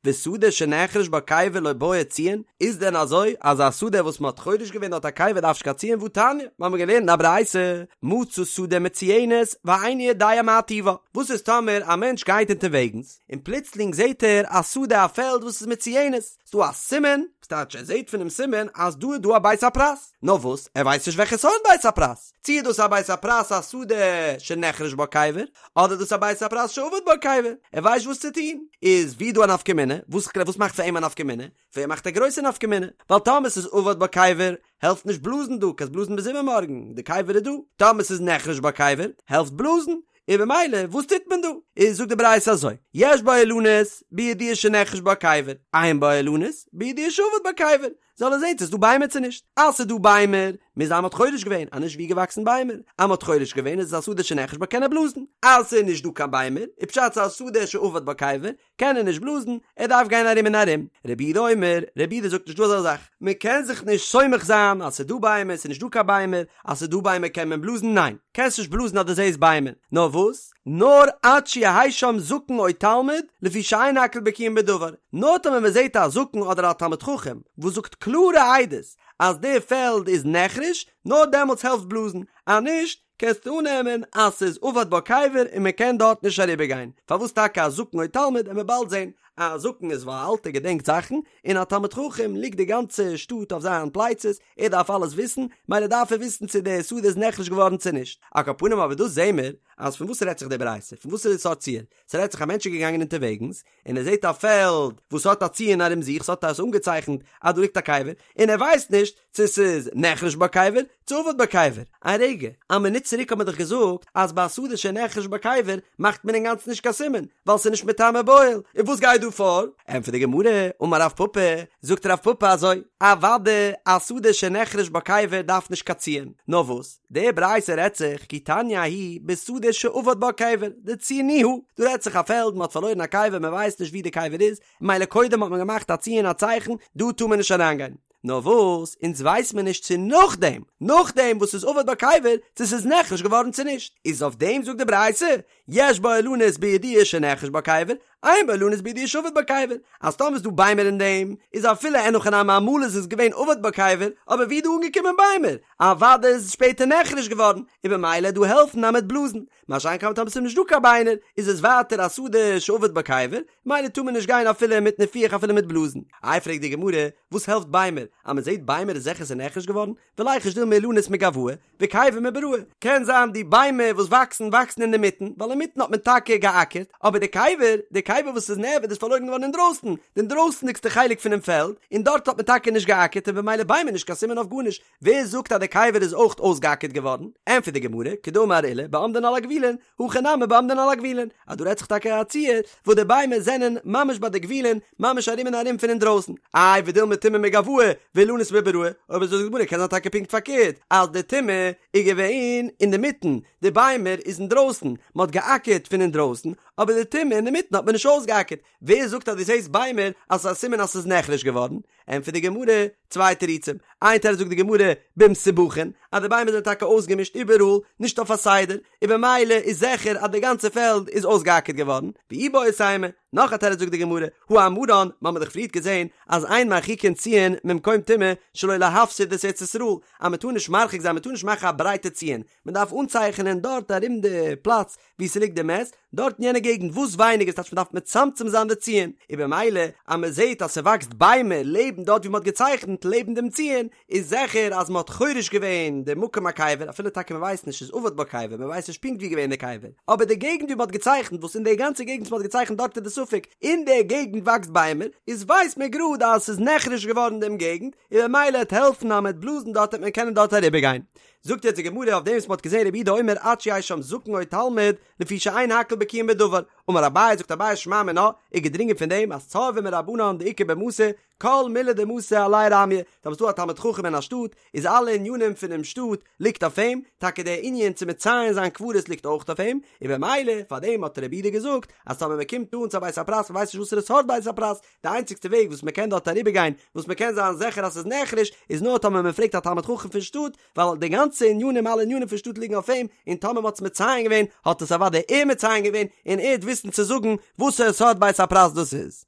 Speaker 1: ושדה שנחרש בה קבר לא בעי ציון, איז דען אזוי אז א שדה וואס מ'האט חורש געווען דארט א קבר דארף נישט קיין ציון והתניא, מיר האבן געלערנט אין א ברייתא, מצא שדה מצויינת ואינו יודע מה טיבה, וואס איז טאמער א מענטש גייט אונטערוועגנס, און פלוצלינג זעט ער א שדה א פעלד וואס איז מצויינת, ס'דא א סימן, ס'טייטש ער זעט פונעם סימן אז דא איז דא א בית הפרס, נאר וואס ער ווייסט נישט וועלכע סארט בית הפרס, צי איז דאס א בית הפרס א שדה שנחרש בה קבר, אדער דאס א בית הפרס שאבד בה קבר, ער ווייסט וואס צו טון, איז ווי דא א נפקא מינה, וואס וואס מאכט פאר אים א נפקא מינה? פאר אים מאכט א גרויסע נפקא מינה, ווייל טאמער ס'איז אבד בה קבר, העלפט נישט בלאזן דא, קענסט בלאזן ביז איבערמארגן, די קבר איז דא, טאמער ס'איז נחרש בה קבר, העלפט בלאזן, און במילא וואס טוט מען דא? איז זאגט די ברייתא אזוי, יש בה אילנות בידוע שנחרש בה קבר, אין בה אילנות בידוע שאבד בה קבר, זאל ער זען צו ס'איז דא ביימער צו נישט, אז ס'איז דא ביימער, מוז זיין מ'האט חורש געווען, אז נישט ווי געוואקסן ביימער, אז מ'האט חורש געווען איז עס א שדה שנחרש בה קען ער בלאזן, אז ס'איז נישט דא קיין ביימער, איז פשט ס'איז א שדה שאבד בה קבר, קען ער נישט בלאזן, ער דארף גיין ארום און ארום. רבי יהודה אומר, רבי יהודה זאגט נישט דא אזא זאך, מען קען זיך נישט סומך זיין אז ס'איז דא ביימער, ס'איז נישט דא קיין ביימער, אז ס'איז דא ביימער קען מען בלאזן, ניין, קענסט נישט בלאזן אז דו זעסט ביימער, נאר וואס? נאר עד שיהא שם זקן או תלמיד, לפי שאין הכל בקיאין בדבר, נאר טאמער מען זעט א זקן אדער א תלמיד חכם וואס זאגט קלארע עדות אז די פעלד איז נחרש, נאר דעמאלטס העלפט בלאזן, אז נישט, קענסטו אננעמען אז ס'איז אבד בה קבר און מען קען דארט נישט אריבער גיין, פארוואס טאקע א זקן או תלמיד עמיר באלד זען, א זקן איז ווייל א אלטער געדענקט זאכן, און א תלמיד חכם ליגט די גאנצע שטאט אויף זיין פלייצעס, ער דארף אלעס וויסן, מילא דארף ער וויסן צו די שדה איז נחרש געווארן צו נישט. על כל פנים אבער דא זעהן מיר אז פון וואס רעדט זיך די ברייתא, פון וואס איז די סארט ציור, ס'רעדט זיך א מענטש איז געגאנגען אונטערוועגנס, און ער זעט א פעלד וואס האט א ציון ארום זיך, ס'האט עס אנגעצייכנט אז דא ליגט א קבר, און ער ווייסט נישט צו ס'איז נחרש בה קבר צו אבד בה קבר. א רגע, א מינוט צוריק האט מען דאך געזאגט אז ביי א שדה שנחרש בה קבר מאכט מען אינגאנצן נישט קיין סימן, ווייל ס'איז נישט מטמא באוהל, און וואס גייט דא? דא פאר? ענטפערט די גמרא, אמר רב פפא, זאגט רב פפא אזוי, אוודאי א שדה שנחרש בה קבר דארף נישט קיין ציון, נאר וואס, די ברייתא רעדט זיך כי תניא ההיא בשדה שאבד בה קבר, דציינוה, דא רעדט זיך א פעלד מען האט פארלוירן א קבר מען ווייסט נישט ווי די קבר איז, מילא קודם האט מען געמאכט א ציון א צייכן, דא טאר מען נישט אריינגיין. נאר וואס, אונז ווייס מיר נישט צו נאכדעם, נאכדעם וואס ס'איז אבד בה קבר, צו ס'איז נחרש געווארן צו נישט. איז אויף דעם זאגט די ברייתא, יש בה אילנות בידוע שנחרש בה קבר, אין בה אילנות בידוע שאבד בה קבר, אז טאמער איז דא ביימער אין דעם, איז אפילו אין הכי נמי אמאל איז עס געווען אבד בה קבר, אבער ווי איז דא אנגעקומען ביימער? אוודאי איז עס שפעטער נחרש געווארן, און במילא דא העלפן אז מ'וועט בלאזן. מה שאין כן טאמער ס'איז נישט דא קיין ביינער, איז עס ווייטער א שדה שאבד בה קבר, מילא טאר מען נישט גיין אפילו מיט ניפוח אפילו מיט בלאזן. איי פרעגט די גמרא, וואס העלפט ביימער? אז מען זעט ביימער איז זיכער ס'איז נחרש געווארן, וליחוש דילמא אילנות מגואי, וקבר מבראי. קען זיין די ביימער וואס וואקסן וואקסן אינדערמיטן, ווייל אינמיטן האט מען טאקע געאקערט, אבער די קבר, די קבר וואס איז נאבד איז פארלוירן געווארן אינדרויסן, די אינדרויסנדיגסטע חלק פונעם פעלד, און דארט האט מען טאקע נישט געאקערט און במילא ביימער נישט קיין סימן אויף גארנישט, ווער זאגט אז די קבר איז אויך אויסגעאקערט געווארן? ענטפערט די גמרא, כדאמר עולא בעומדין על הגבולין, הכא נמי בעומדין על הגבולין, אז דא רעדט זיך טאקע א ציור וואס די ביימער זענען ממש ביי די גבולין, ממש ארום און ארום פון אינדרויסן. איי ודילמא טומאה מגואי ואילנות מבראי, אויב אזוי זאגט די גמרא קען זיין טאקע פונקט פארקערט, אז די טומאה איז געווען אינדערמיטן, די ביימער איז אינדרויסן, מען האט געאקערט פון אינדרויסן, אבער די טומאה אינדערמיטן האט מען נישט אויסגעאקערט, ווער זאגט אז דו זעסט ביימער אז ס'איז א סימן אז ס'איז נחרש געווארן? ענטפערט די גמרא, צוויי תירוצים, איין תירוץ זאגט די גמרא, במסובכין, אז די ביימער זענען טאקע אויסגעמישט איבעראל, נישט אויף א סדר, און במילא איז זיכער אז די גאנצע פעלד איז אויסגעאקערט געווארן, ואיבעית אימא, נאך א תירוץ זאגט די גמרא, הא אמרן, מ'האמיר דאך פריערט געזען אז אין מרחיקין ציון ממקום טומאה שלא להפסיד את ארץ ישראל, אז מ'טאר נישט מרחיק זיין, מ'טאר נישט מאכן א ברייטע ציון, מ'דארף אנצייכענען דארט ארום די פלאץ וואו ס'ליגט די מת, דארט אין יענע געגנט וואס ווייניגער ס'טייטש מ'דארף מצמצם זיין די ציון, און במילא אז מ'זעט אז ס'וואקסט ביימער לעבן דארט ווי מ'האט געצייכנט לעבן דעם ציון, איז זיכער אז מ'האט חורש געווען די מקום הקבר, אפילו טאקע מ'ווייסט נישט איז אבד בה קבר, מ'ווייסט נישט פונקט ווי געווען די קבר, אבער די געגנט ווי מ'האט געצייכנט וואס אין די גאנצע געגנט וואס מ'האט געצייכנט דארט איז די ספק, אין די געגנט וואקסט ביימער, איז ווייסט מען גראד אז ס'איז נחרש געווארן דעם געגנט, און במילא העט העלפן אז מ'העט בלאזן דארט העט מען קענען דארט אריבערגיין. זאגט יעצט די גמרא אויף דעם וואס מ'האט געזען רבי יהודה אומר עד שיהא שם זקן או תלמיד לפי שאין הכל בקיאין בדבר, אמר אביי זאגט אביי שמע מינה, איז געדרינגען פון דעם אז צורבא מרבנן דאיכא במתא, כל מילי דמתא עליה רמיא, טאמער ס'דא א תלמיד חכם אין א שטאט, איז אלע ענינים פונעם שטאט ליגט אויף אים, טאקע דער ענין צו מציין זיין קברות ליגט אויך אויף אים, און במילא פאר דעם האט רבי יהודה געזאגט אז טאמער מ'קומט אן צו א בית הפרס מ'ווייסט נישט וואסערע סארט בית הפרס, די איינציגסטע וועג וואס מען קען דארט אריבערגיין וואס מען קען זיין זיכער אז ס'איז נחרש איז נאר טאמער מען פרעגט א תלמיד חכם פון שטאט ווייל די גאנצע ענינים אלע ענינים פון שטאט ליגן אויף אים און טאמער מען האט עס מציין געווען האט עס אוודאי ער מציין געווען און ער וועט וויסן צו זאגן וואסערע סארט בית הפרס דאס איז.